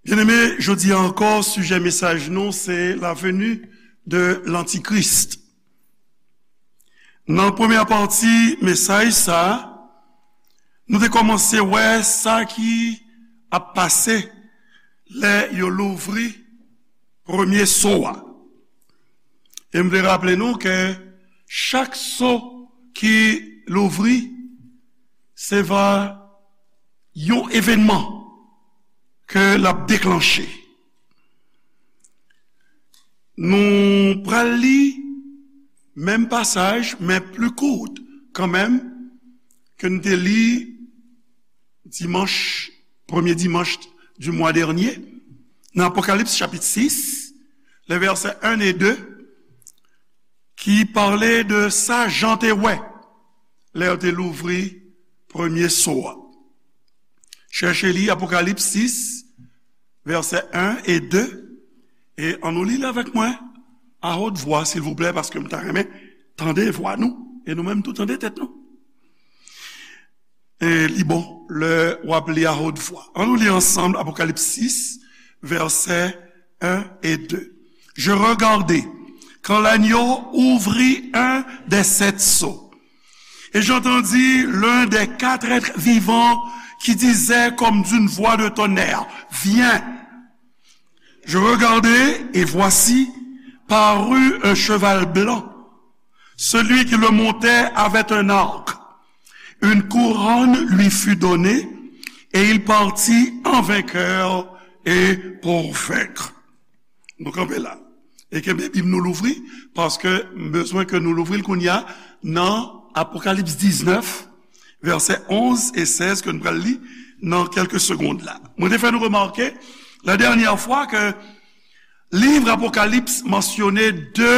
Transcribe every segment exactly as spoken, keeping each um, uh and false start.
Byeneme, jodi a ankò, sijè mesaj nou se la venue de l'Antichrist. Nan premyè pati mesaj sa a, nou te kòmanse wè sa ki ap pase lè yo louvri premye so a. E m vle raple nou ke chak so ki louvri, se va yon evènman ke l ap deklanche. Nou pral li menm pasaj, men pli kout kanmenm ke n te li dimanch, premye dimanch di mwa dènye, nan Apokalips chapit sis, le vèsè en e de, ki pale de sa Jan te wè lè yo te louvri premye so a. Chèche li Apokalips sis, vèsè en e de, e ann nou li l avèk mwen a haute voix, silvouplè, paske m ta renmen tande vwa nou, e nou menm tou tande tèt nou. E li bon lè w ap li a haute voix. Ann nou li ansanm Apokalips sis, vèsè en e de. Je regardai quand l'agneau ouvrit un des sept sceaux. Et j'entendis l'un des quatre êtres vivants qui disait comme d'une voix de tonnerre, viens. Je regardai, et voici, parut un cheval blanc. Celui qui le montait avait un arc. Une couronne lui fut donnée, et il partit en vainqueur et pour vaincre. Nou kanpe la. E kenbe Bib nou louvri, paske m bezwen ke nou louvri l kounye a nan Apokalips diznèf, vèsè onz e sèz ke n pral li nan kèlke segonn la. Mwen te fè nou remake la dènyè fwa ke liv Apokalips mansyone de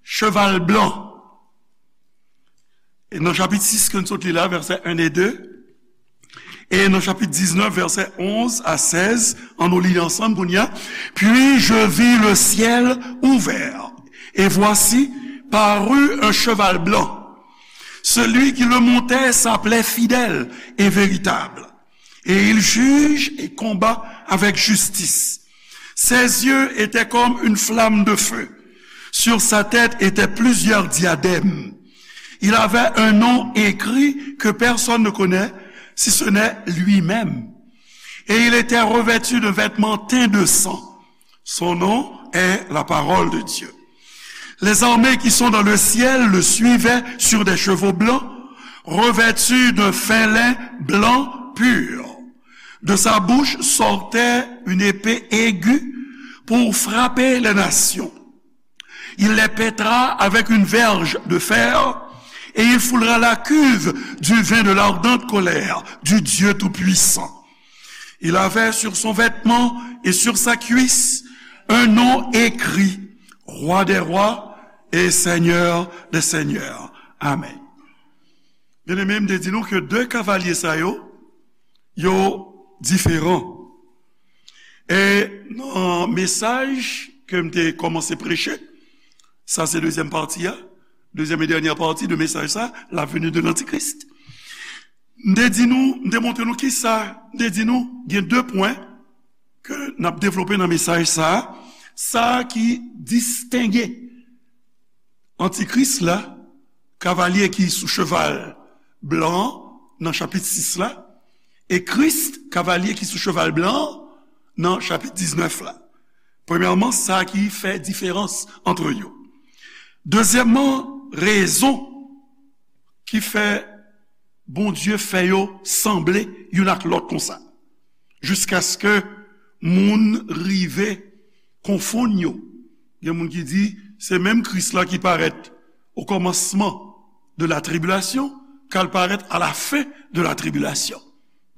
cheval blan. E nan chapit sis ke n sot li la, vèsè en e de, e nan chapit diznèf, vèsè onz a sèz, ann nou li ansanm kounye a. Puis je vis le ciel ouvert, et voici, parut un cheval blanc. Celui qui le montait s'appelait Fidèle et Véritable, et il juge et combat avec justice. Ses yeux étaient comme une flamme de feu. Sur sa tête étaient plusieurs diadèmes. Il avait un nom écrit que personne ne connaît, si ce n'est lui-même. Et il était revêtu de vêtements teints de sang. Son nom est la parole de Dieu. Les armées qui sont dans le ciel le suivaient sur des chevaux blancs, revêtus d'un fin lin blanc pur. De sa bouche sortait une épée aiguë pour frapper les nations. Il les pètera avec une verge de fer, et il foulera la cuve du vin de l'ardente colère du Dieu Tout-Puissant. Il avait sur son vêtement et sur sa cuisse un nom écrit, Roi des rois et Seigneur des seigneurs. Amen. Byeneme, m te di nou ke de kavalye sa yo, yo diferan. E nan mesaj ke m te kòmanse preche, sa se dezyèm pati a, dezyèm e dènyè pati de mesaj sa, la venue de l'Antichrist. M te di nou, m te montre nou kisa, m te di nou, gen de pwen ke n ap devlope nan mesaj sa, sa ki distenge Antikris la, kavalye ki sou cheval blan an, nan chapit sis la, e Kris, kavalye ki sou cheval blan an, nan chapit diznèf la. Premyèman, sa ki fè diferans ant yo. Dezyèmman, rezon ki fè Bondye fè yo sanble youn ak lòt konsa, jiskaske moun rive konfonn yo. Gen moun ki di, se menm Kris la ki parèt o kòmansman de la tribulation, k al parèt à la fin de la tribulation.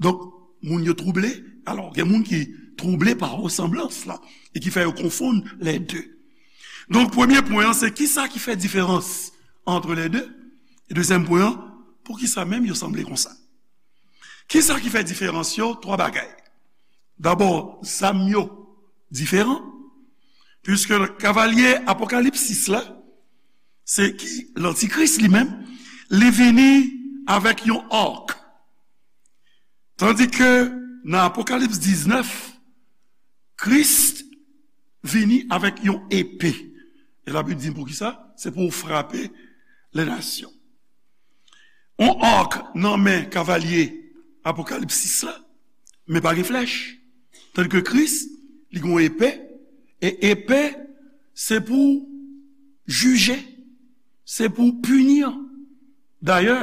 Donk, moun yo twouble. Alò, gen moun ki twouble pa resanblans la, e ki fè yo konfonn les deux. Donk, premye pwen an, se kisa ki fè diferans ant les deux? E dezyèm pwen an, poukisa menm yo sanble konsa? Kisa ki fè diferans yo? Twa bagay. Dabò, zam yo diferan, piske kavalye Apokalips sis la, se ki Lantikris li menm, li vini avèk yon ark. Tandike nan Apokalips diznèf, Kris vini avèk yon epe. E Labib di n poukisa? Se pou frape lè nasyon. On ak nan men kavalye Apokalipsis la, men pa gen flèch. Tandike Kris, li gen yon epe, e epe, se pou jije, se pou pini. Dayè,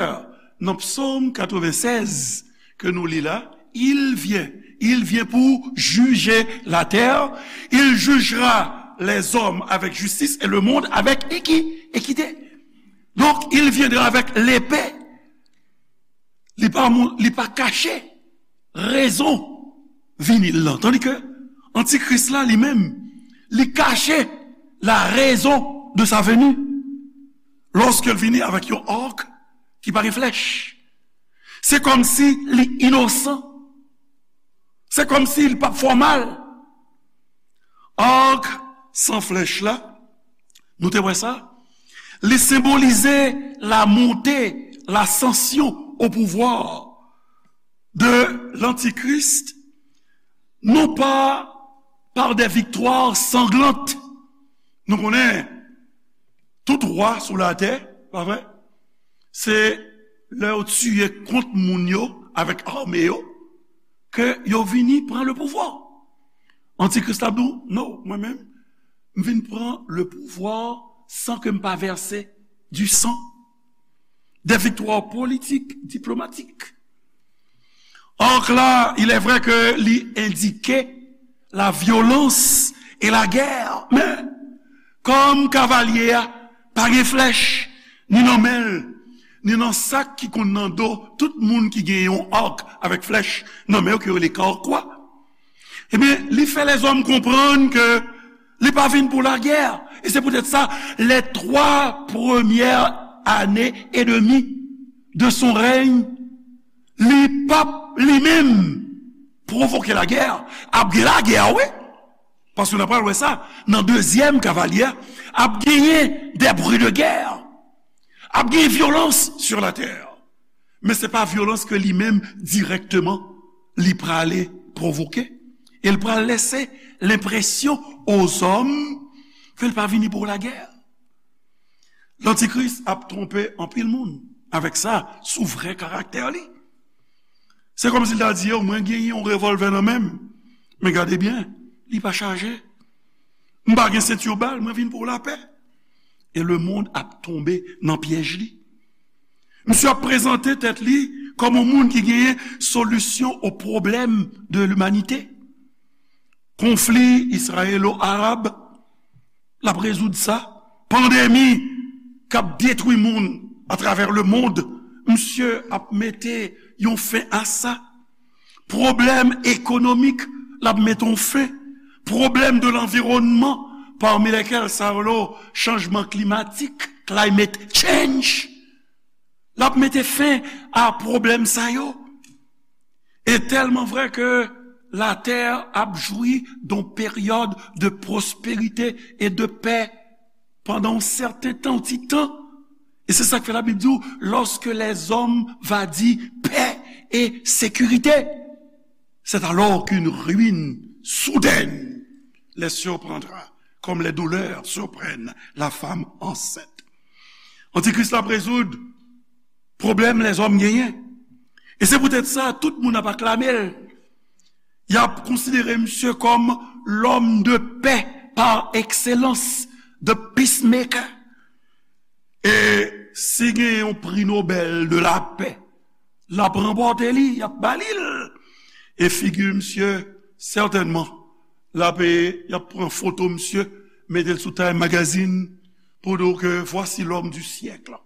nan Psaume quatre-vingt-seize ke nou li la, il vient, il vient pour juger la terre, il jugera les hommes avec justice et le monde avec équi-, équité. Donc, il viendra avec l'épée. Li pa, li pa kache rezon vini l lan. Tandike Antikris la, li menm, li kache la raison de sa venue. Lorsqu'il vini avec yon arc ki pa gen flèch. Se kòmsi li inosan. Se kòmsi li p ap fè w mal. Arc san flèch la, nou te wè sa, li senbolize la montée, l'ascension au pouvoir de l'Antichrist, non pas par des victoires sanglantes. Nou konnen tout wa sou latè, pa vre? Se lè yo tiye kont moun yo avèk ame yo, ke yo vini pran le pouvwa. Antikris la di w, non, mwen menm, m vin pran le pouvwa san ke m pa vèse du sang. Des victoires politiques, diplomatiques. Or la, il est vrai que li endike la violence et la guerre. Men, kòm kavalye a pa gen flèch, ni nan men l, ni nan sak ki konn nan do tout moun ki gen yon arc avèk flèch nan men yo, ki yo rele karkwa. Ebyen, li fè lèzòm konprann ke li pa vin pou lagè. E se poutèt sa, les trois premières années et demie de son règne, li p ap li menm pwovoke lagè. Ap gen lagè, wi. Paske n ap pral wè sa nan dezyèm kavalye a, ap genyen des bruits de guerre. Ap gen vyolans sur la terre. Men se pa vyolans ke li menm dirèkteman li prale pwovoke. E l pral lese lenpresyon ozòm ke l pa vini pou lagè. Lantikris ap twonpe anpil moun avèk sa sou vrè karaktè li. Se kòmsi l ta di yo, mwen genyen yon revòlvè nan men m, men gade byen, li pa chaje. M pa gen senti bal, mwen vin pou lapè. E lemonn ap tonbe nan pyèj li. Misye ap prezante tèt li kòm yon moun ki genyen solisyon o pwoblèm de limanite. Konfli izrayelo-arab, l ap rezoud sa. Pandemi k ap detwi moun atravè lemonn, misye ap mete yon fen a sa. Pwoblèm ekonomik, l ap mete yon fen. Pwoblèm de lanviwònman, pami lèkèl sa yo, chanjman klimatik, climate change, l ap mete fen a pwoblèm sa yo. E tèlman vrè ke latè ap jwi d'un période de prospérité et de paix pandan yon sèten tan, yon ti tan. E se sa k fè Labib di w, lorsque les hommes va dire paix et sécurité, c'est alors qu'une ruine soudaine les surprendra, comme les douleurs surprennent la femme enceinte. Antikris la ap rezoud pwoblèm lèzòm genyen. E se poutèt sa, tout moun ap aklame l. Y ap konsidere misye kòm l'homme de paix par excellence, the peacemaker. E si gen yon pri Nobèl de lapè, l ap ranpòte li, y ap ba li l. E figi misye, sètènman, l ap, y ap pran foto misye, mete l sou Time Magazine, pou di w ke voici l'homme du siècle.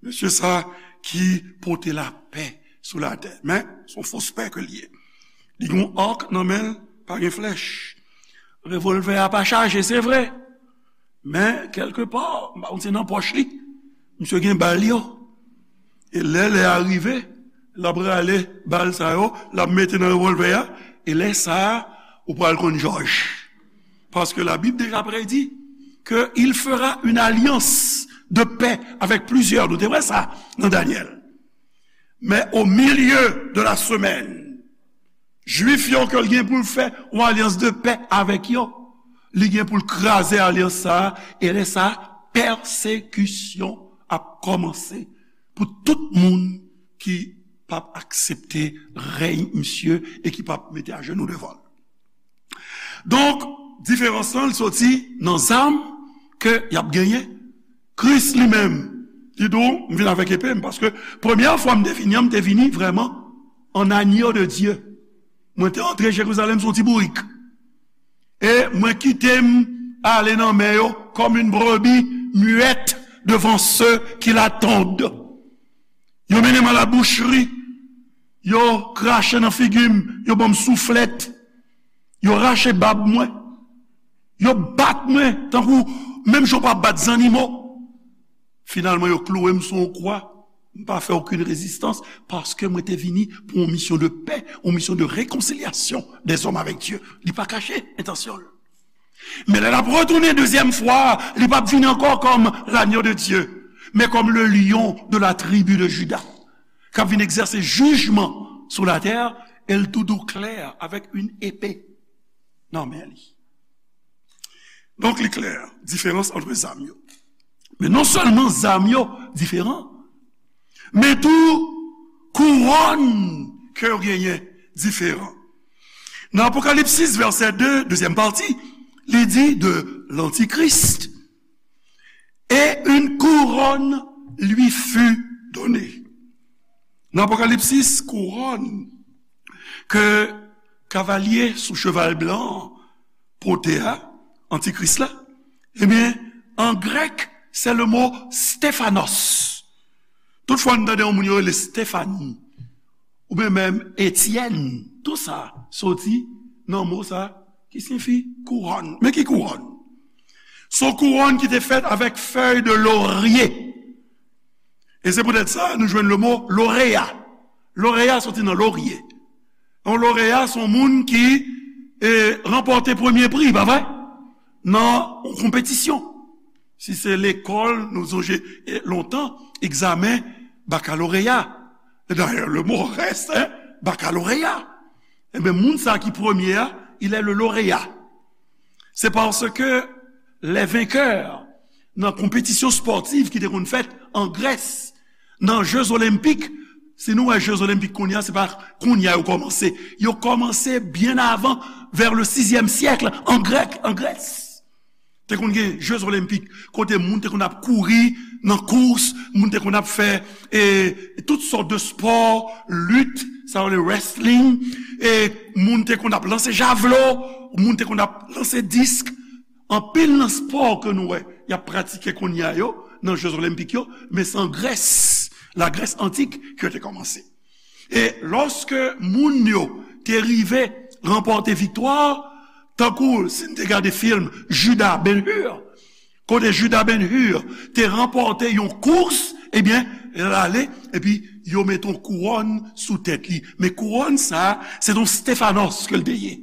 Mesye sa ki pote lapè sou latè. Men, se yon fos pè ke l ye. Li gen yon ak nan men l, pa gen flèch. Revòlvè a pa chaje, se vre. Men, kèlkepa, m pa konn si nan pòch li, misye gen bal yo. E lè lè a rive, l ap rale bal sa yo, l ap mete nan revòlvè a, e lè sa a, ou pral konn jòj. Paske Labib deja predi ke il fera une alliance de paix avec plusieurs. Nou te wè sa nan Danyèl. Mais au milieu de la semaine, Jwif yo ke l gen pou l fè yon alyans de pè avèk yo, li gen pou l kraze alyans sa a, e lè sa a, pèsekisyon ap kòmanse pou tout moun ki p ap aksepte rèy misye e ki p ap mete ajenou devan l. Donk, diferans lan, l soti nan zam ke y ap genyen. Kris li menm, li di w, m vin avèk epe m, paske premyè fwa m te vini an, m te vini vrèman an agneau de Dieu. Mwen te antre Jerizalèm sou ti bourik. E mwen kite m ale nan men yo comme une brebis muette devant ceux qui l'attendent. Yo mennen m a la boucherie. Yo krache nan figi m. Yo ban m souflèt. Yo rache bab mwen. Yo bat mwen tankou menm jan w pa bat zannimo. Finalman, yo klouwe m sou yon kwa. M pa fè okenn rezistans paske mwen te vini pou yon misyon de pè, yon misyon de rekonsilyasyon dèzòm avèk Dye. Li pa kache entansyon l. Men lè l ap retounen dezyèm fwa, li p ap vini ankò kòm l'agneau de Dieu, men kòm le lion de la tribu de Juda, k ap vin egzèse jijman sou latè, e l tou dou klè avèk yon epe nan men li. Donk, li klè, diferans ant zam yo. Men non sèlman zam yo diferan, men tou kouwòn ke yo genyen diferan. Nan Apokalipsis, vèsè de, dezyèm pati, li di de l'Antichrist, et une couronne lui fut donnée. Nan Apokalipsis, kouwòn ke kavalye sou cheval blan pote a, antikris la, ebyen, an grèk, se le mo Stéphanos. Tout fwa n tande yon moun yo rele Stefani, oubyen menm Etyèn, tou sa soti nan mo sa ki siyifi kouwòn. Men ki kouwòn? Se yon kouwòn ki te fèt avèk fèy de lorye. E se poutèt sa nou jwenn le mo loreya. Loreya soti nan lorye. Yon loreya se yon moun ki e, ranpòte premye pri, pa vre? Nan yon konpetisyon. Si se lekòl, nou sonje e, lontan, egzamen bakaloreya. Dayè, le mo reste, hein, bakaloreya. Ebyen, moun sa ki premye a, il est le lauréat. C'est parce que les vainqueurs nan konpetisyon spòtiv ki te konn fèt an Grès, nan Jeux Olympiques, si nou wè Jeux Olympiques kounye a, se pa kounye a yo kòmanse. Yo kòmanse byen avan, vers le sixième siècle, an Grèk, an Grès. Te konn gen Jeux Olympiques, kote moun te konn ap kouri nan kous, moun te konn ap fè e, tout sòt de spò, lit, sa yo rele wrestling, e moun te konn ap lanse javlo, moun te konn ap lanse disk. Anpil nan spò ke nou wè y ap pratike kounye a yo nan Jeux Olympiques yo, men se an Grès, la Grèce antique, ke yo te kòmanse. E lòske moun yo te rive ranpòte viktwa, tankou si n te gade fim Judas Ben Hur, kote Judas Ben Hur te ranpòte yon kous, ebyen, l ale, epi yo mete yon kouwòn sou tèt li. Men kouwòn sa a, se yon Stéphanos ke l te ye,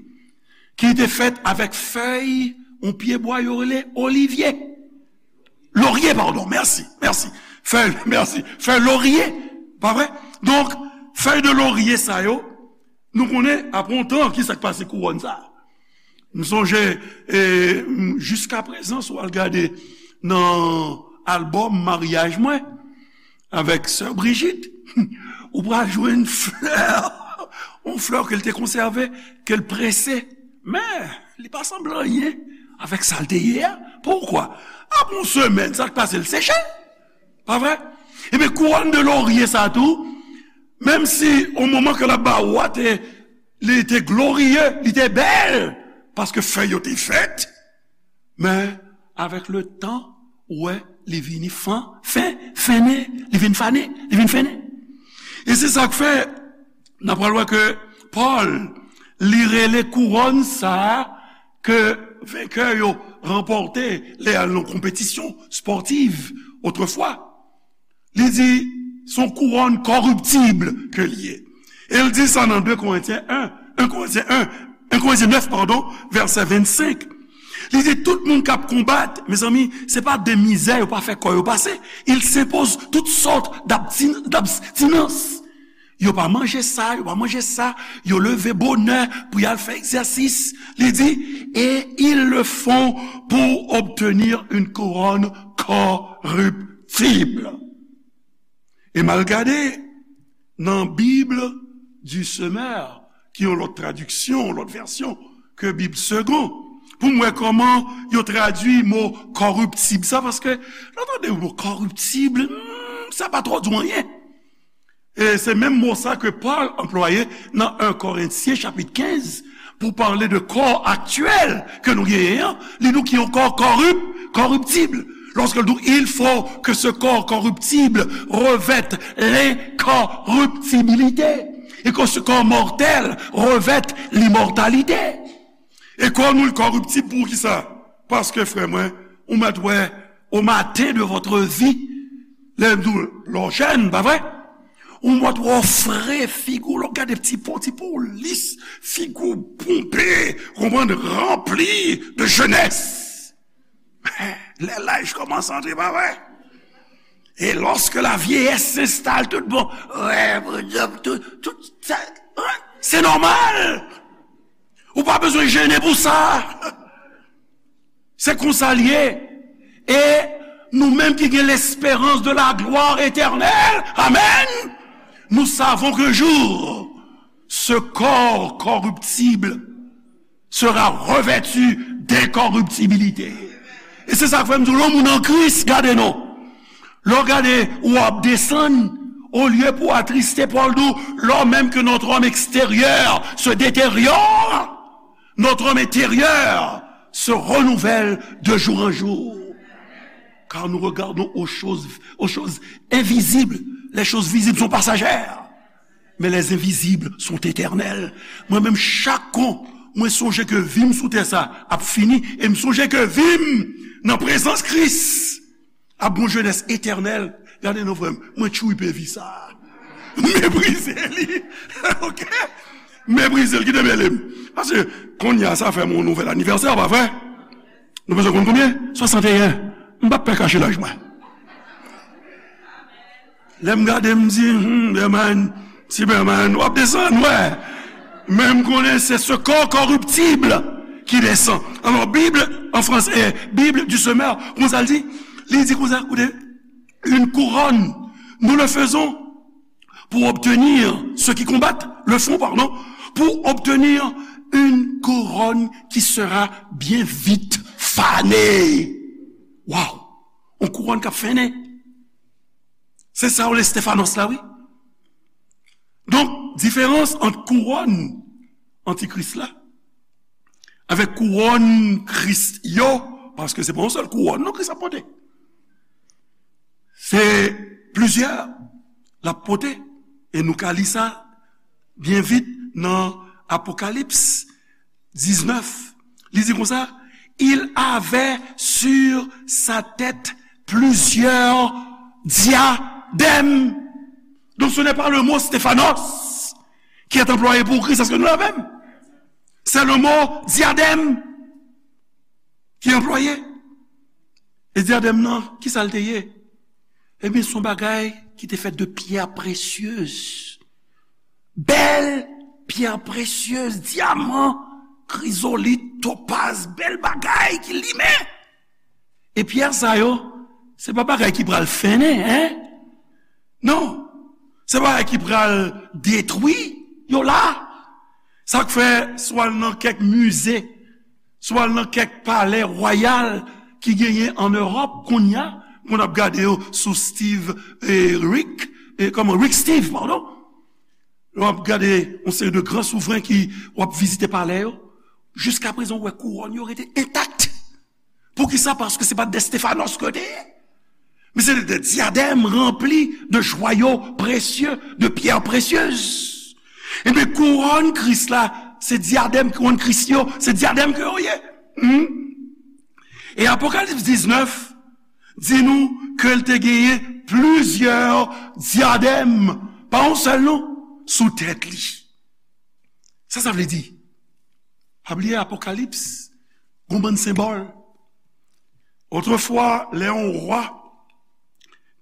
ki te fèt avèk fèy yon pyebwa yo rele olivye. Lorye, padon, mèsi, mèsi. Fèy, mèsi. Fèy lorye, pa vre? Donk, fèy de lorye sa yo, nou konnen, apre yon tan, ki sa k pase kouwòn sa a? M sonje, e, m, jiska prezan, si w al gade nan albòm maryaj mwen, avèk sè Brigitte, ou pral jwenn flè, yon flè ke l te konsève, ke l prese. Men, li pa sanble anyen avèk sa l te ye a. Poukwa? Apre yon semèn, sa k pase, l seche. Pa vre? Ebyen, kouwòn de lorye sa tou, menm si o moman ke l ap ba w a, te, li te gloriye, li te bèl, paske fèy yo te vèt, men, avèk le tan, ou wè, li vini fan, fen, fennen, li vin fannen, li vin fennen. E se sa k fè, n ap pral wè ke Pòl, li rele kouwòn sa a ke venkè yo ranpòte lè y al nan konpetisyon spòtiv otrefwa. Li di, se yon kouwòn kòriptib ke l ye. E l di sa nan de Korentyen en, en Korentyen en, en Korentyen nèf, padon, vèsè vennsenk. Li di, tout moun k ap konbat, mezanmi, se pa de mizè yo pa fè kò yo pase. Ils s'imposent toutes sortes d'abstin-, d'abstinence. Yo pa manje sa, yo pa manje sa. Yo leve bonè pou y al fè egzèsis. Li di, et ils le font pour obtenir une couronne corruptible. E m al gade nan Bible du Semeur, ki yon lòt tradiksyon, yon lòt vèsyon ke Bib Segond, pou m wè kòman yo tradui mo kòriptib sa, paske lè w tande mo kòriptib, hmm, sa pa twò di w anyen. E se menm mo sa ke Pòl anplwaye nan en Korentyen chapit kenz, pou pale de kò aktyèl ke nou genyen an, li di w ki yon kò kòrip, kòriptib. Lorsque il dit, il faut que ce corps corruptible revête l'incorruptibilité, et que ce corps mortel revête l'immortalité. E kò nou l kòriptib pou kisa? Paske, frè mwen, ou mèt wè, au matin de votre vie, lè m di w, lè w jèn, pa vre? Ou mèt wè w fre, figi w, lè w gade ti po, ti po lis, figi w ponpe, konprann, ranpli de jenès. Lè laj kòmanse antre, pa vre? Et lorsque la vieillesse s'installe, tout bon, wè, tout, tout sa, se nòmal. Ou pa bezwen jennen pou sa. Se konsa l ye. E nou menm ki gen lesperans de la glwa etènèl, amen, nous savons qu'un jour, ce corps corruptible sera revêtu d'incorruptibilité. E se sa k fè m di w, lè yon moun an Kris, gade non. Lè w gade, w ap desann, olye pou w atriste, Pòl di w, lò menm ke notre homme extérieur se détériore, notre homme intérieur se renouvelle de jour en jour. Car nous regardons aux choses, aux choses invisibles. Les choses visibles sont passagères, mais les invisibles sont éternelles. Mwen menm, chak kou mwen sonje ke vi m sou tè sa ap fini, e m sonje ke vi m nan prezans Kris ap gon jenès etènèl. Gade non, frè m, mwen tchwipe vi sa. M meprize li. Ok? M meprize l, kite mele m. Paske kounye a sa fè m yon nouvèl anivèsè, pa vre? Nou bezwen konn konbyen? Swasanteyen. M p ap pè kache laj mwen. Lè m gade, m di, hmm, Berman, ti Berman, w ap desann, wè. Men m konnen se ce corps corruptible qui descend. Alò, Bib, an fransè, Bible du Semeur, konsa l di? Li di konsa, koute, une couronne, nous le faisons pour obtenir, ceux qui combattent le font, pardon, pour obtenir une couronne qui sera bien vite fanée. Waw! Yon kouwòn k ap fennen. Se sa w le Stéphanos la, wi. Donk, diferans ant kouwòn antikris la avèk kouwòn Kris yo, paske se pa yon sèl kouwòn non Kris ap pote. Se plizyè l ap pote. E nou ka li sa byen vit nan Apokalips diznèf. Li di konsa, il avait sur sa tête plusieurs diadèmes. Donc ce n'est pas le mot Stéphanos qui est employé pour Christ, est-ce que nous l'avons? C'est le mot diadème qui est employé. E dyadèm nan, ki sa l te ye? Ebyen, se yon bagay ki te fèt de pyè presyez. Bèl pyè presyez, dyaman, krizolit, topaz, bèl bagay ki limen. E pyè sa yo, se pa bagay ki pral fennen, en? Non. Se bagay ki pral detwi yo la. Sa k fè, si w al nan kèk mize, si w al nan kèk palè wayal ki genyen an Ewòp kounye a, moun ap gade yo sou Steve, eh, Rick, eh, kòman, Rick Steve, padon. W ap gade yon seri de gran souvren ki w ap vizite palè yo. Jiskaprezan, w wè kouwòn yo rete entak. Poukisa? Paske se pa de Stéphanos ke te ye. Men se de dyadèm ranpli de jwayo presye, de pyè presyez. Ebyen, kouwòn Kris la, se dyadèm, kouwòn Kris yo, se dyadèm ke yo ye. Hmm? E Apokalips diznèf di nou ke l te genyen plizyè dyadèm, pa yon sèl non, sou tèt li. Sa sa vle di? Pa bliye Apokalips, gon bann senbòl. Otrefwa, lè yon wa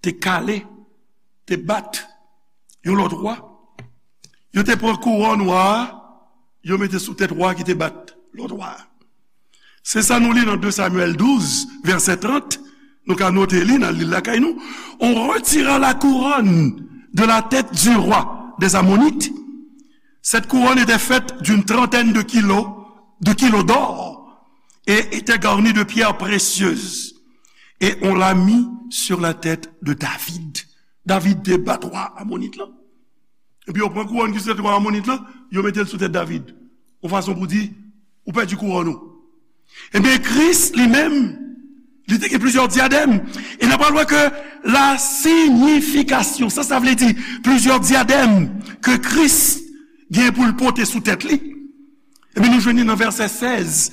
te kale, te bat yon lòt wa, Yo te pran kouwòn wa a, yo mete sou tèt wa ki te bat lòt wa a. Se sa nou li nan de Samyèl douz, vèsè trant. Nou ka note li, n al li l lakay nou. On retira la couronne de la tête du roi des Ammonites. Cette couronne était faite d'une trentaine de kilos, de kilos d'or et était garnie de pierres précieuses. Et on l'a mis sur la tête de David. David te bat wa Amonit lan. Epi yo pran kouwòn ki sou tèt wa Amonit lan, yo mete l sou tèt David. Yon fason pou di, ou pèdi kouwòn ou. Ebyen, Kris li menm, li te gen plizyè dyadèm. E n ap pral wè ke la siyifikasyon, sa, sa vle di plizyè dyadèm ke Kris gen pou l pote sou tèt li. Ebyen, nou jwenn li nan vèsè sèz,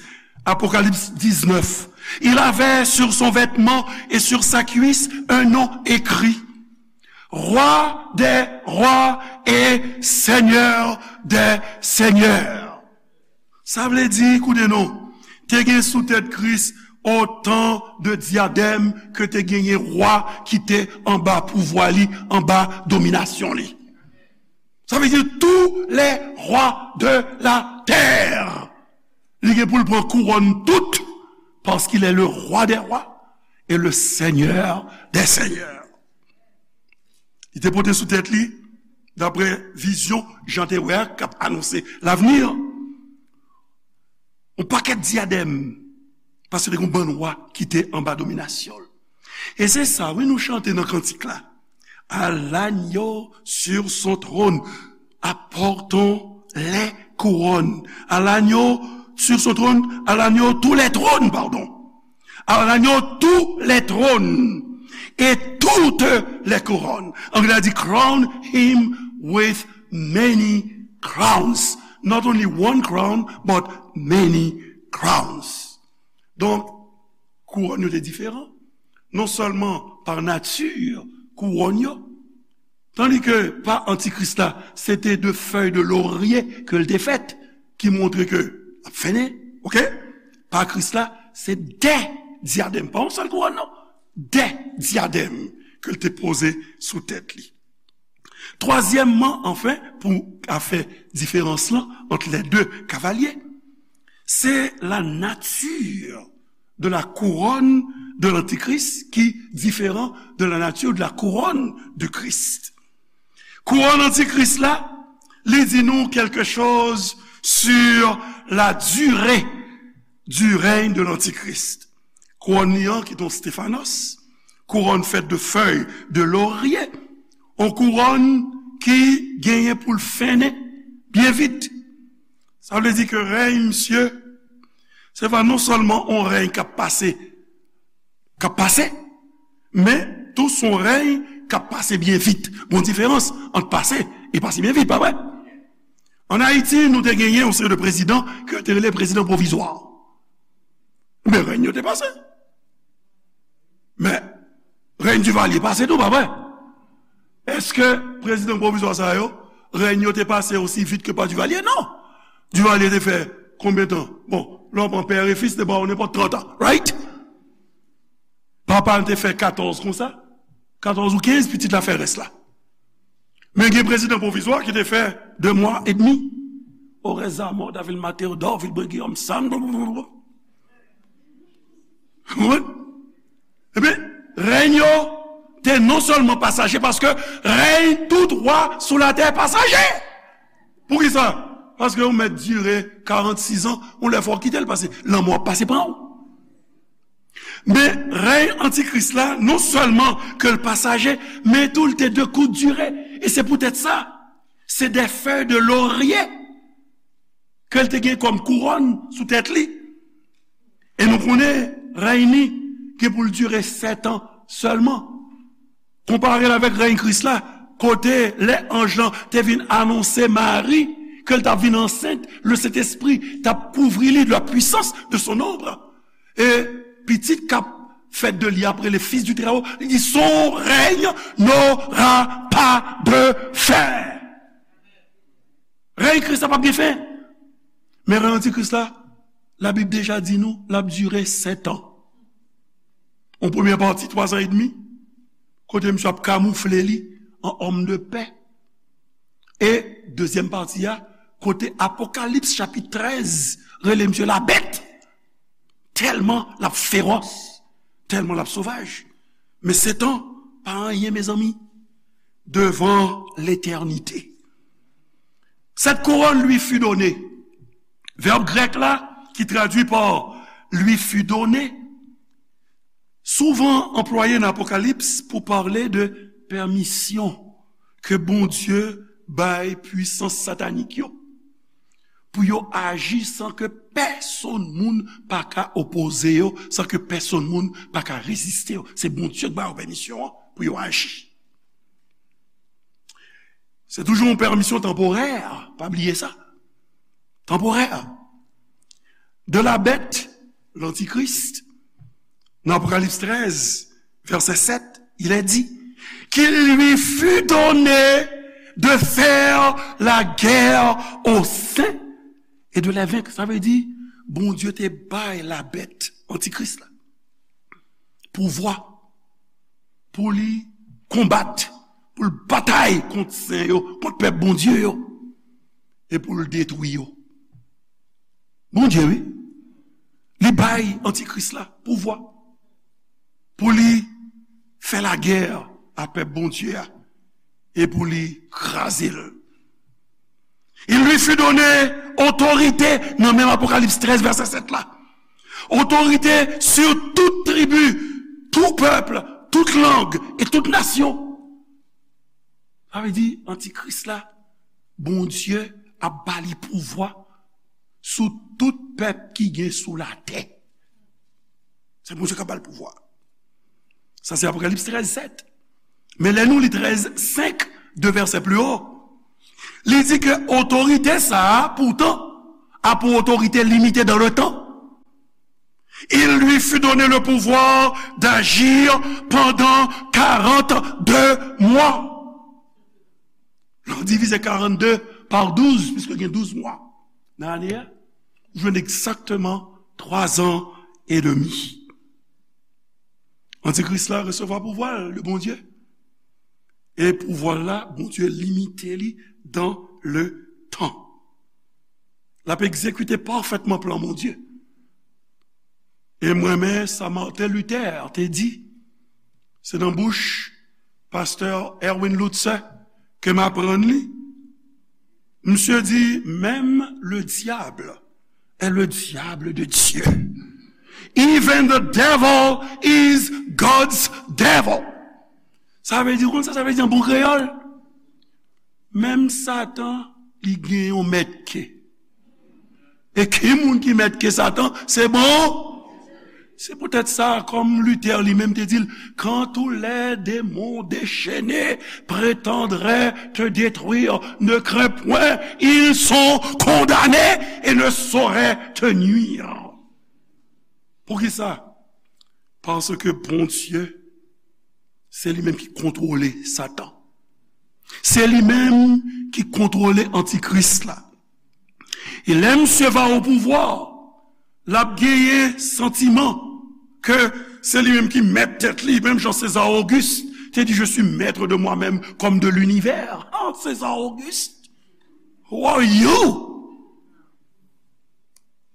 Apokalips diznèf. Il avait sur son vêtement et sur sa cuisse un nom écrit, Roi des rois et Seigneur des seigneurs. Sa vle di, koute non, te gen sou tèt Kris otan de dyadèm ke te genyen wa ki te anba pouvwa li, anba dominasyon li. Sa vle di tous les rois de la terre. Li gen pou l pran kouwòn tout, parce qu'il est le roi des rois et le Seigneur des seigneurs. Li te pote sou tèt li, daprè vizyon Jan te wè a, k ap anonse lavni, yon pakèt dyadèm, paske te gen yon bann wa ki te anba dominasyon l. E se sa, wi, nou chante nan kantik la. À l'agneau sur son trône, apportons les couronnes. À l'agneau sur son trône, à l'agneau tous les trônes, pardon. À l'agneau tous les trônes et toutes les couronnes. Anglè a di, crown him with many crowns. Not only one crown, but many crowns. Donk, kouwòn yo te diferan. Non sèlman pa nati kouwòn yo, tandi ke pa antikris la, se te de fèy de lorye ke l te fèt, ki montre ke l ap fennen, oke? Pa Kris la, se de dyadèm, pa yon sèl kouwòn, non. De dyadèm ke l te poze sou tèt li. Twazyèmman, anfen, pou ka fè diferans lan ant les deux cavaliers, c'est la nature de la couronne de l'Antichrist qui différent de la nature de la couronne de Christ. Kouwòn antikris la, li di nou quelque chose sur la durée du règne de l'Antichrist. Kouwòn li an ki te yon Stefanos, kouwòn fèt de fèy de lorye, yon kouwòn ki genyen pou l fennen byen vit. Sa vle di ke rèy misye, se pa non sèlman yon rèy k ap pase, k ap pase, men tou se yon rèy k ap pase byen vit. Gon diferans ant pase e pase byen vit, pa vre? Ann Ayiti, nou te genyen yon seri de prezidan ke yo te rele prezidan pwovizwa. Men rèy yo te pase. Men rèy Divalye pase tou, pa vre? Èske prezidan pwovizwa sa yo, rèy yo te pase osi vit ke pa Divalye? Non. Divalye te fè konbyen tan? Bon, lè w pran pè e fis, te ba w nenpòt trant an, right? Papa m te fè katòz konsa, katòz ou kenz, pitit la fè rès la. Men gen prezidan pwovizwa ki te fè de mwa edmi. Orèza mò, Davil Mateo, Dòvil Brigiyòm, Sam, konprann? Ebyen, rèy yo te non sèlman pasaje, paske rèy tout wa sou latè pasaje. Poukisa? Paske yon mèt dire karannsis an, yon lè fò w kite l, paske lanmò ap pase pran w. Men rèy antikris la, non sèlman ke l pasaje, men tou l te de kout dire. E se poutèt sa, se de fèy de lorye ke l te gen kòm kouwòn sou tèt li. E nou konnen rèy li gen pou l dire sèt an sèlman. Konpare l avèk rèy Kris la, kote lè anj lan te vin anonse Mari ke l t ap vin ansent, le Sentespri t ap kouvri li de la puissance de son ombre. E pitit k ap fèt de li ap rele Fis du Très-Haut, li di, son règne n'aura pas de fin. Rèy Kris la p ap gen fen. Men rèy antikris la, Labib deja di nou, l ap dire sèt an. Yon premyè pati, twa zan edmi, kote misye ap kamoufle li an òm de pè. E dezyèm pati a, kote Apokalips chapit trèz rele misye labèt. Tèlman l ap fewòs, tèlman l ap sovaj. Men Setan pa anyen, mezanmi, devan letènite. Cette couronne lui fut donnée. Vèb grèk la, ki tradui pa lui fut donné, souvan anplwaye nan Apokalips pou pale de pèmisyon ke Bondye bay pwisans satanik yo pou yo aji san ke pèsonn moun pa ka opoze yo, san ke pèsonn moun pa ka reziste yo. Se Bondye ki ba yo pèmisyon an pou yo aji. Se toujou yon pèmisyon tanporè, pa bliye sa. Tanporè. De la bête, l'Antichrist, dans Apocalypse treize, verset sept, il est dit qu'il lui fut donné de faire la guerre aux saints et de les vaincre. Sa vle di, Bondye te bay labèt, antikris la, pouvwa pou li konbat, pou l batay kont sen yo, kont pèp Bondye yo, e pou l detwi yo. Bondye, wi, li bay antikris la pouvwa pou li fè lagè a pèp Bondye a e pou li kraze l. Il lui fut donné autorité, nan menm Apokalips trèz, vèsè sèt la. Autorité sur toute tribu, tout peuple, toute langue et toute nation. Sa vle di, antikris la, Bondye ap ba li pouvwa sou tout pèp ki gen sou latè. Se Bondye k ap ba l pouvwa. Sa se Apokalips trèz sèt. Men lè nou li trèz senk, de vèsè pli wo, li di ke otorite sa a, poutan, a pou otorite limite dans le temps. Il lui fut donné le pouvoir d'agir pendant quarante-deux mois. Lè w divize karannde pa douz, piske gen douz mwa nan ane a, ou jwenn egzakteman twa zan edmi. Antikris la resevwa pouvwa l de Bondye. E pouvwa l la, Bondye limite li dans le temps. L ap egzekite pafètman plan Bondye. E m renmen sa Martin Luther te di. Se nan bouch pastè Erwin Lutzer ke m aprann li. Misye di, même le diable est le diable de Dieu. Even the devil is God's devil. Sa vle di, ou konn sa sa vle di an bon kreyòl? Menm Satan, li gen yon mèt ke. E ki moun ki mèt ke Satan? Se bon. Se poutèt sa, kòm Luther li menm te di l, quand tous les démons déchaînés prétendraient te détruire, ne crains point, ils sont condamnés et ne sauraient te nuire. Poukisa? Paske Bondye, se li menm ki kontwole Satan. Se li menm ki kontwole antikris la. E lè misye va o pouvwa, l ap genyen santiman ke se li menm ki mèt tèt li, menm jan César Auguste te di, je suis maître de moi-même comme de l'univers. Oh, César Auguste, who are you?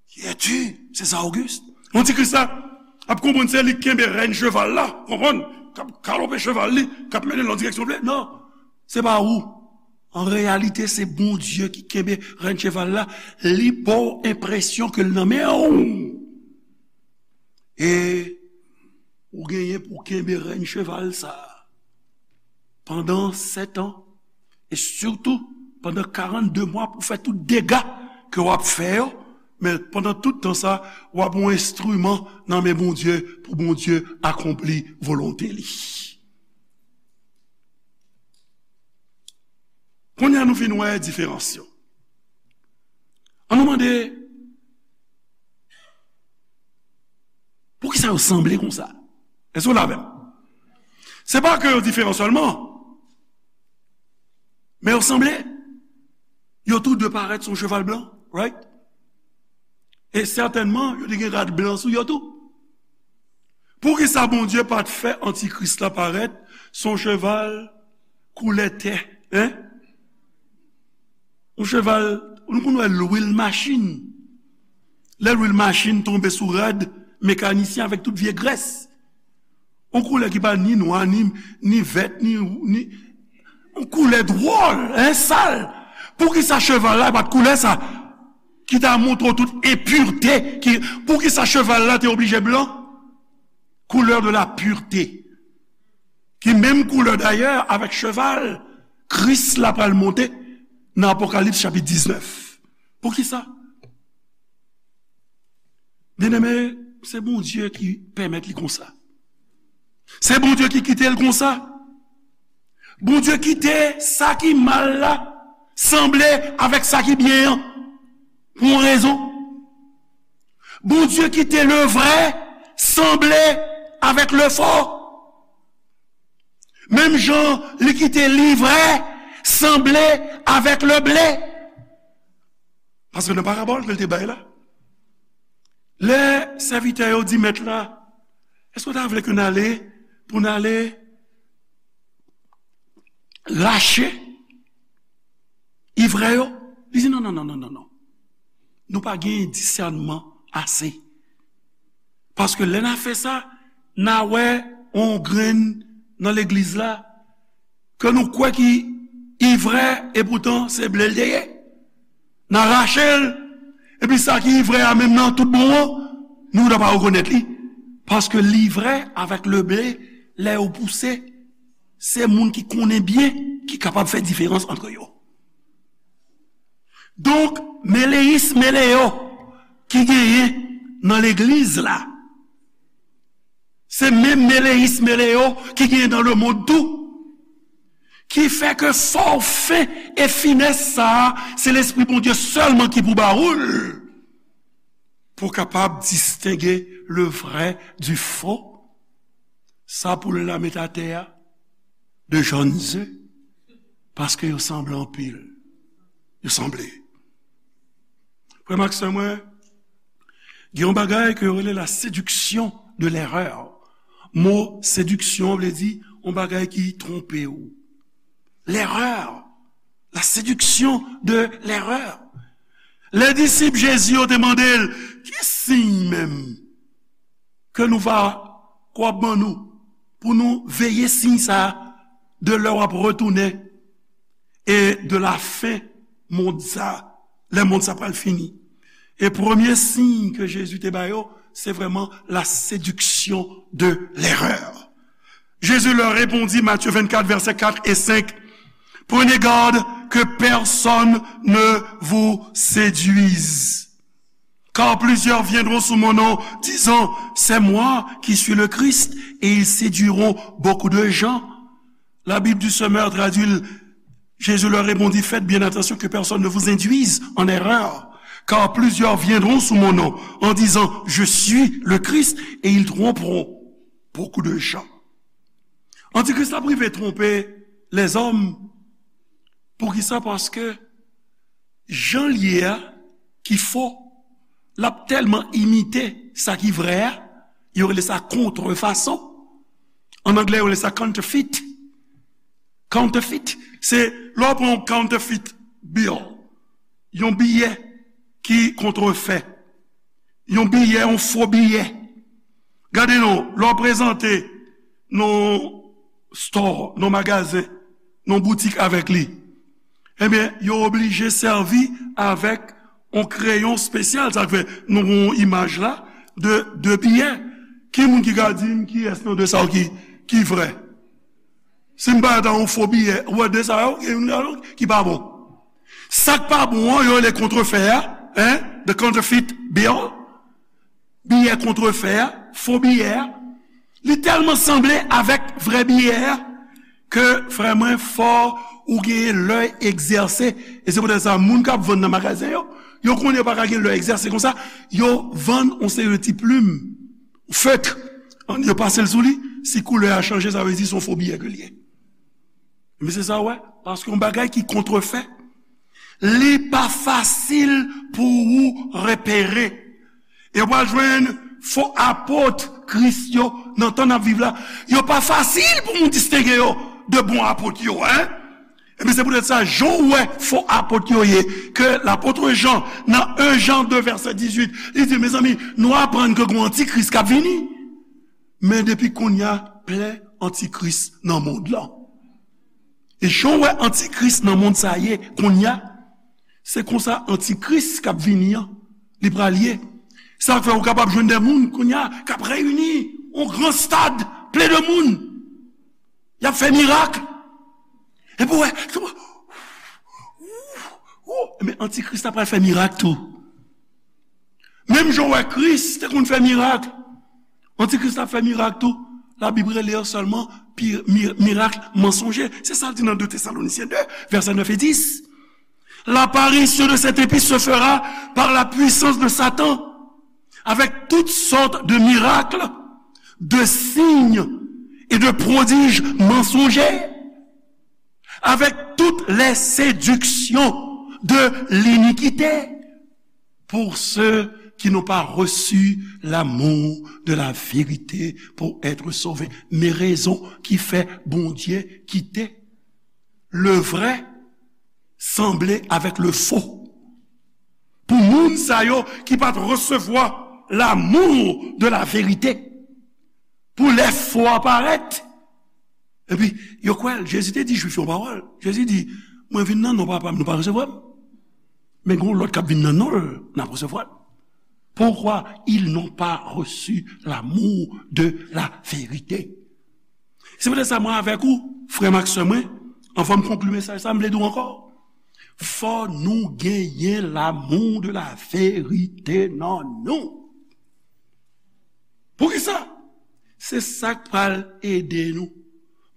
Qui es-tu, César Auguste? Antikris la ap konprann se li k kenbe rèn cheval la, konprann? K ap galope cheval li, k ap mennen l nan direksyon l vle. Non, se pa ou. An reyalite, se Bondye ki kenbe rèn cheval la. Li ba w enpresyon ke l nan men w. E ou genyen pou w kenbe rèn cheval sa a pandan sèt an, e sitou pandan karannde mwa pou fè tout dega ke w ap fè yo, men pandan tout tan sa, w ap yon enstriman nan men Bondye pou Bondye akonpli volonte li. Kounye a nou fin wè diferans yo. An nou mande, poukisa yo sanble konsa? Èske w la avè m? Se pa ke yo diferan sèlman, men yo sanble. Yo tou de parèt sou yon cheval blan, right? E sètènman, yo te gen rad blan sou yo tou. Poukisa Bondye pa t fè antikris la parèt sou yon cheval koulè tè, en? Yon cheval, nou konn wè lwil machin. Lè lwil machin tonbe sou rad mekanisyen avèk tout vye grès. Yon koulè ki pa ni nwa, ni, ni vèt, ni, ni, yon koulè dwòl, en, sal. Poukisa cheval la pa t koulè sa? Ki ta montre w tout enpirte, ki, poukisa cheval la te oblije blan? Couleur de la pureté. Ki menm koulè dayè avèk cheval Kris la pral monte nan Apokalips chapit diznèf. Poukisa? Byeneme, se Bondye ki pèmèt li konsa. Se Bondye ki kite l konsa. Bondye kite sa ki mal la sanble avèk sa ki byen an pou yon rezon. Bondye kite le vrè sanble avèk le fo. Menm jan li kite livrè sanble avèk le ble. Paske nan parabòl ke l te bay la, lè sèvitè yo di mèt la, èske w ta vle ke n ale pou n ale rache ivrè yo? Li di, non, non, non, non, non, non. Nou pa gen disènman ase. Paske lè n a fè sa, n a wè yon grenn nan legliz la ke nou kwè ki ivrè, epoutan se ble l te ye. N a rache l, epi sa ki ivrè a menm nan tout bon an, nou ta pa rekonèt li. Paske livrè avèk le ble, lè yo pouse, se moun ki konnen byen ki kapab fè diferans ant yo. Donk, meleyis meleyo ki genyen nan legliz la, se menm meleyis meleyo ki genyen nan lemonn tou. Ki fè ke fò w fen e finès sa a, se Lespri Bondye sèlman ki pou ba ou l. Pou w kapab distenge le vrè di fo, sa poul la met atè a, de jòn ze, paske yo sanble anpil. Yo sanble. Frè m ak sè mwen, gen yon bagay ke yo rele la séduction de l'erreur. Mo séduction vle di yon bagay ki twonpe w. L'erreur, la séduction de l'erreur. Lè disip Jezi yo te mande l, ki siy menm ke nou va, k w ap ban nou, pou nou veye siy sa a de lè w ap retounen e de la fen mond sa, lè mond sa pral fini. E premye siy ke Jezi te ba yo, se vrèman la séduction de l'erreur. Jésus leur répondit, Matthieu vingt-quatre, versets quatre et cinq, prenez garde que personne ne vous séduise. Car plusieurs viendront sous mon nom, disant, c'est moi qui suis le Christ, et ils séduiront beaucoup de gens. La Bible du Semeur traduit, Jésus leur répondit, faites bien attention que personne ne vous induise en erreur, car plusieurs viendront sous mon nom en disant, je suis le Christ, et ils tromperont beaucoup de gens. Antikris la rive twonpe lèzòm. Poukisa? Paske jan l ye a, ki fo, l ap tèlman imite sa ki vrè a, yo rele sa kontrefason. An anglè, yo rele sa counterfeit. Counterfeit, se lè w pran yon counterfeit bill, yon biyè ki kontrefè, yon biyè, yon fo biyè. Gade non, lè w prezante nan store, nan magazen, nan boutik avèk li, ebyen, yo oblije sèvi avèk yon kreyon espesyal. Sa k fè nou gen yon imaj la de de biyè. Ki moun ki ka di m kiyès nan de sa yo ki, ki vrè? Si m pa ta yon fo biyè, ou wè de sa yo, gen youn ladan ki pa bon. Sa k pa bon an, yo rele kontrefè a, hein, the counterfeit bill. Biyè kontrefè a, fo biyè a, li tèlman sanble avèk vrè biyè a, ke, frè mwen, fò ou genyen lè egzèse. E se poutèt sa, moun k ap vann nan magazen yo, yo konnen yo pa ka gen lè egzèse konsa, yo vann yon seri de ti plim, feutre, yo pase l sou li, si koulè a chanje, sa vle di se yon fo biyè ke l ye. Men se sa w wè, paske yon bagay ki kontrefè, li pa fasil pou ou repere. E w pral jwenn fo apot Kris yo nan tan n ap viv la. Yo pa fasil pou moun distenge yo de bon apot yo, en. Ebyen, se poutèt sa, jan w wè fo apot yo ye, ke lapot Jan, nan en Jan de vèsè dizuit, li di, mezanmi, nou aprann ke gen yon antikris k ap vini. Men depi kounye a, plen antikris nan mond lan. E jan w wè antikris nan mond sa ye kounye a, se konsa antikris k ap vini an, li pral ye. Sa fè ou kapab jwenn de moun kounye a k ap reyini yon gran stad plen de moun. Y ap fè mirak. Epi w wè, men antikris la pral fè mirak tou. Menm jan w wè Kris te konn fè mirak, antikris la ap fè mirak tou. Labib rele yo sèlman pi- mi- mirak mansonje. Se sa l di nan de Tesalonisyen de, vèsè nèf e dis. L'apparition de cette épître se fera par la puissance de Satan, avec toutes sortes de miracles, de signes et de prodiges mensongers, avec toutes les séductions de l'iniquité, pour ceux qui n'ont pas reçu l'amour de la vérité pour être sauvés. Men rezon ki fè Bondye kite le vrai sanble avèk le faux. Pou moun sa yo ki pa t resevwa l'amour de la vérité, pou lè fo a parèt. Epi, yo kwè l. Jezi te di Jwif yo yon pawòl. Jezi di, mwen vin nan non Papa m, nou pa resevwa m. Men gen yon lòt k ap vin nan non l, n ap resevwa l. Pourquoi ils n'ont pas reçu l'amour de la vérité. Se poutèt sa, mwen avèk ou, frè m ak sè mwen, anvan m konkli mesaj sa, m vle di w ankò, fò nou genyen l'amour de la vérité nan nou. Poukisa? Se sa k pral ede nou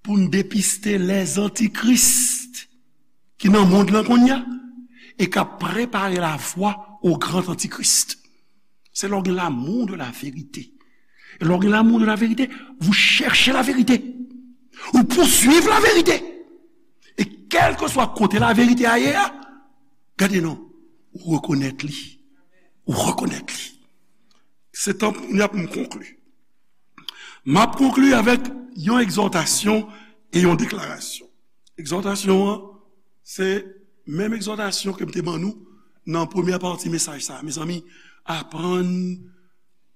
pou n depiste lèzantikris ki nan mond lan kounye a e k ap prepare lavwa o gran antikris. Se lè w gen l'amour de la vérité. E lè w gen l'amour de la vérité, vous cherchez la vérité. Ou pouswiv la vérité. E kèlkeswa kote la vérité a ye a, gade non, ou rekonèt li. Ou rekonèt li. Se tan pou m konkli. M ap konkli avèk yon egzòtasyon e yon deklarasyon. Egzòtasyon an, se menm egzòtasyon ke m te ban nou nan premyè pati mesaj sa a. Mezanmi, aprann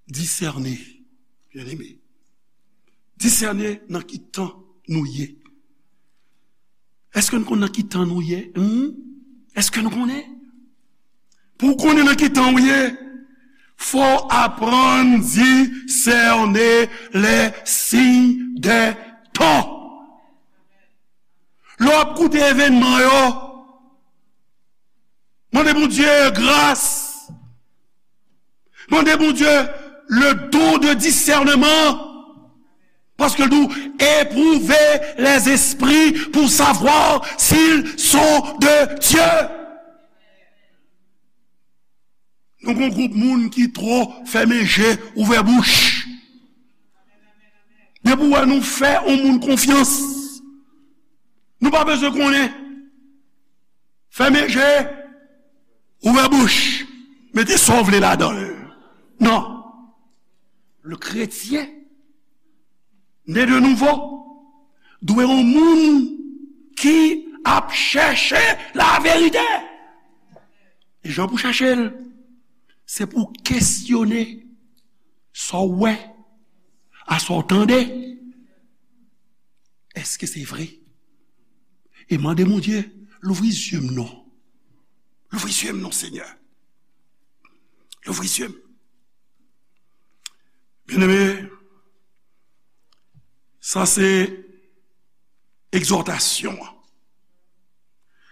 disène, byeneme. Disène nan ki tan nou ye. Èske nou konn nan ki tan nou ye? Hmm? Èske nou konnen? Pou w konnen nan ki tan w ye, fò w aprann disène les signes des temps. Lè w ap koute evènman yo, mande Bondye gras. Mande Bondye le don de discernement. Paske l di w, éprouver les esprits pour savoir s'ils sont de Dieu. Nou gen yon gwoup moun ki twò fèmen je, ouvè bouch. Depi w wè nou fè yon moun konfyans, nou pa bezwen konnen. Fèmen je, ouvè bouch, mete sa w vle ladan l. Non. Le chrétien né de nouveau dwe yon moun ki ap chèche laverite. E jan pou chèche l, se pou kesyone sa w wè, a sa w tande. Èske se vre? E mande Bondye, louvri zye m non. Louvri zye m non, Senyè. Louvri zye m. Byeneme, sa se egzòtasyon an.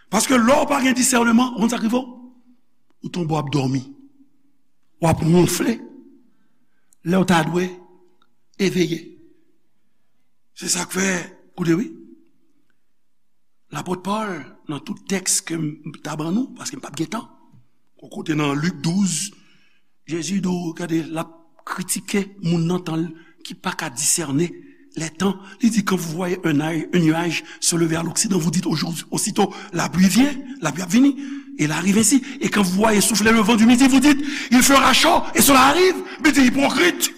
Paske lè w pa gen disèneman, ou konn sa k rive w? Ou tonbe w ap dòmi. W ap wonfle. Lè w ta dwe eveye. Se sa k fè, koute wi. Lapot Pòl, nan tout tèks ke m ta ban nou, paske m p ap gen tan. Yon kote nan Lik douz, Jezi di w, gade, l ap kritike moun nan tan l ki pa ka disène lè tan. Li di, quand vous voyez un, un nuage se lever à l'occident, vous dites, aujourd'hui, aussitôt, la pluie vient, la pluie ap vini. Et il arrive ainsi. Et quand vous voyez souffler le vent du midi, vous dites, il fera chaud, et cela arrive. Li di, ipokrit.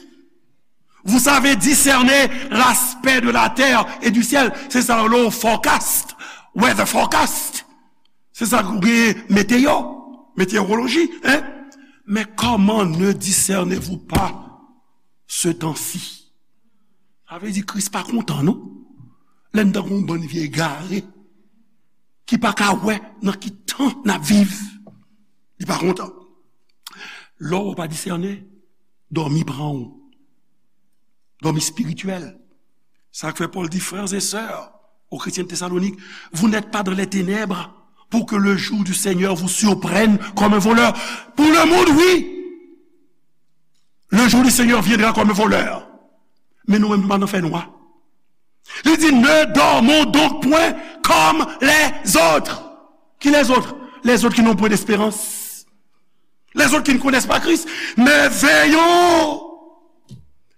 Vous savez discerner l'aspect de la terre et du ciel. Se sa yo rele forecast. weather forecast. Se sa k gen meteo, meteoroloji, hein? Mais comment ne discernez-vous pas ce temps-ci? Sa vle di Kris pa kontan, non? Lè n tankou yon bann vye egare ki pa ka wè nan ki tan n ap viv. Li pa kontan. Lè w pa disène, dòmi pran w. Dòmi espirityèl. Sa k fè Pòl di, frères et sœurs, aux chrétiens de Thessalonique, vous n'êtes pas dans les ténèbres pour que le jour du Seigneur vous surprenne comme un voleur. Pour le monde, oui. Le jour du Seigneur viendra comme un voleur. Men nou menm, nou pa nan fènwa. Li di, ne dormons donc point comme les autres. Qui les autres? Les autres qui n'ont point d'espérance. Les autres qui ne connaissent pas Christ. Mais veillons.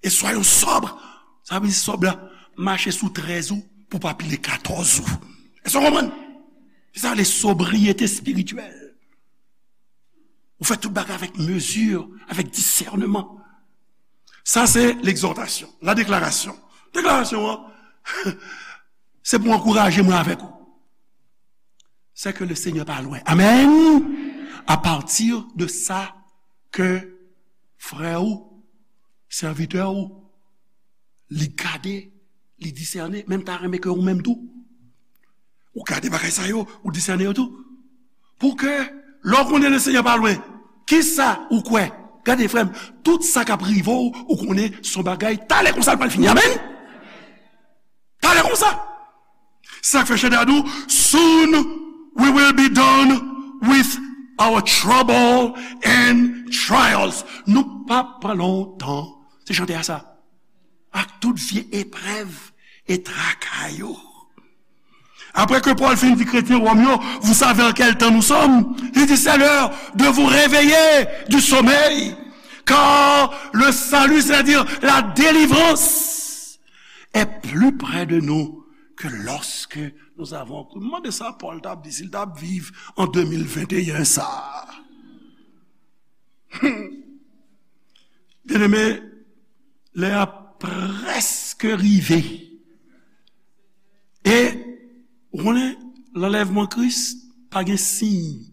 Et soyons sobres. Sa vle di sòb la, mache sou trèz ou pou pa pile katòz ou. Èske w konprann? Se sa le sobriété spirituelle. Ou fè tout bagay avèk mezi, avèk disèneman. Sa se legzòtasyon. La deklarasyon. Deklarasyon an, se pou ankouraje mwen avèk ou. C'est que le Seigneur pa lwen. Amen. À partir de sa ke frè ou, sèvitè ou, li gade, li disène, men m ta renmen ke ou menm tou, ou gade bagay sa yo, ou disène yo tou. Pou ke, lè w konnen le Seigneur pa lwen, kisa ou kwè? Gade, frè m, tout sa k ap rive w, ou konnen se yon bagay, talè konsa l pral fini. Amen. Talè konsa. Sa k fè chante a di w, soon we will be done with our trouble and trials. Nou p ap pran lontan. Se chante a sa. Ak tout vye eprèv e traka yo. Après que Paul fin di kretyen Wòm yo, vous savez en quel temps nous sommes? Il dit, c'est l'heure de vous réveiller du sommeil, car le salut, c'est-à-dire la délivrance, est plus près de nous que lorsque nous avons cru. M mande sa Pòl t ap di si l t ap viv an de mil venteyen sa. Byeneme, lè a prèske rive. E, ou konnen, lanlèvman Kris pa gen siy.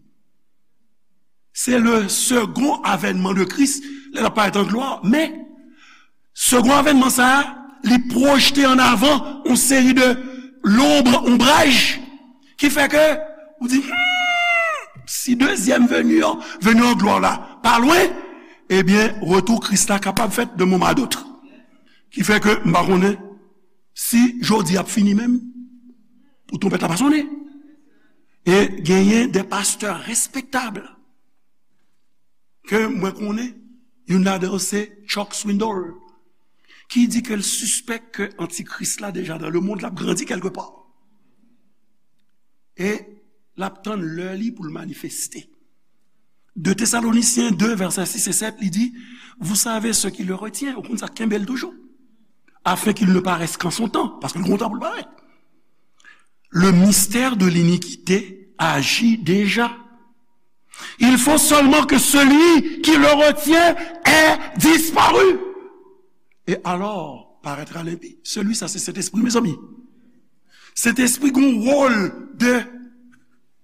Se le second avènement de Christ, lè l ap parèt an glwa. Men, second avènement sa a, li pwojte an avan yon seri de lonb, onbraj, ki fè ke ou di, hmm, si dezyèm veni an, veni an glwa la, pa lwen, ebyen, retou Kris la kapab fèt de moman a dot. Ki fè ke m pa konnen si jodi ap fini menm, pou twonpèt la pa sonnen. E genyen de pastè respektab ke mwen konnen, youn ladan yo se Chuck Swindoll, ki di ke l sispèk ke antikris la deja dans le monde, l ap grandi kèlkepa. E l ap tann lè li pou l manifeste. De Thessaloniciens deux, versets six et sept, li di, vous savez ce qui le retient, ou konn sa k kenbe l toujou, afin qu'il ne paraisse qu'en son temps, paske l gen yon tan pou l parèt. Le mystère de l'iniquité agit déjà. Il faut seulement que celui qui le retient ait disparu. Et alors paraîtra l'impie. Celui sa se Sentespri, mezanmi. Sentespri gen yon wòl de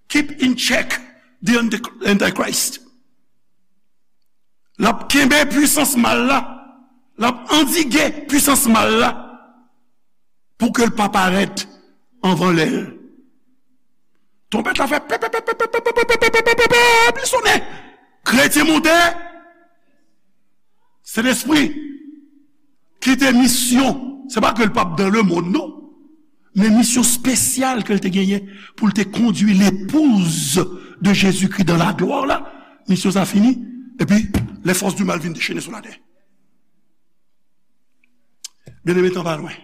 keep in check the anti- Antichrist. L ap kenbe pwisans mal la. L ap andike pwisans mal la pou ke l pa parèt anvan lè l. Twonpèt la fè pèp, pèp, pèp, pèp, pèp, li sonnen. Kretyen monte. Sentespri kite misyon. Se pa ke l p ap dans le monde, non. Men misyon espesyal ke l te genyen pou l te kondui l'épouse de Jésus-Christ dans la gloire la. Misyon sa fini. Epi, les forces du mal vin dechene sou latè. Byeneme, tan pa lwen.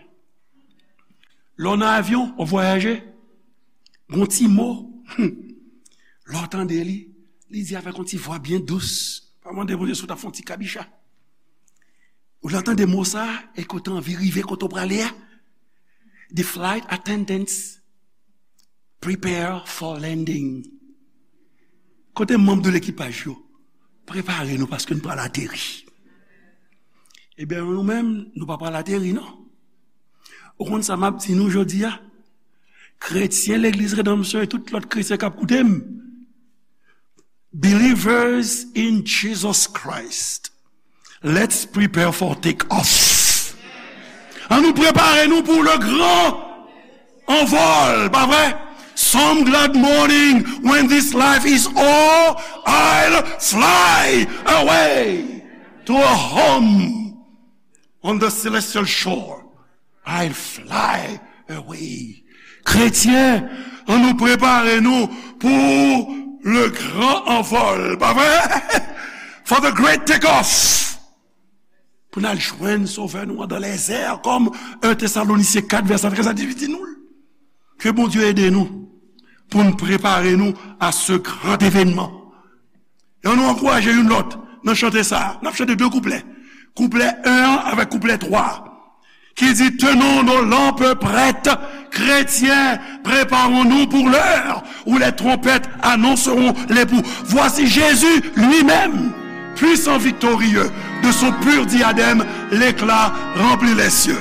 Lè w nan avyon, w ap vwayaje, gon ti mo, hmm, lè w tande li, li di avèk yon ti vwa byen dous. Pa mande Bondye si w t ap fè yon ti kabicha. Ou lè w tande mo sa, e ke w te anvi rive kote w prale a. The flight attendants, prepare for landing. Kote manm de lekipaj yo? Prepare nou paske n pral ateri. Ebyen, nou menm, nou pa pral ateri, non. Ou konn sa m ap di nou jodi a? Kretyen legliz Redanmsyon e tout lòt kretyen k ap koute m. Believers in Jesus Christ, let's prepare for take off. An nou prepare nou pou le grand envol, pa vre? Some glad morning when this life is all, I'll fly away to a home on the celestial shore. I'll fly away. Kretyen, an nou prepare nou pou le grand envol, pa vre? For the great take off. Pou n al jwenn Sovè nou an dans les airs, kòm un Thessaloniciens quatre, verset treize à dix-huit di nou l. Ke Bondye ede nou pou n prepare nou a ce grand événement. E ann nou ankouraje youn lòt nan chante sa a. N ap chante de kouplè. Kouplè un an avèk kouplè twa a. Ki di, tenons nos lampes prêtes, chrétiens, préparons-nous pour l'heure où les trompettes annonceront l'époux. Voici Jésus lui-même, puissant, victorieux, de son pur diadème, l'éclat remplit les cieux.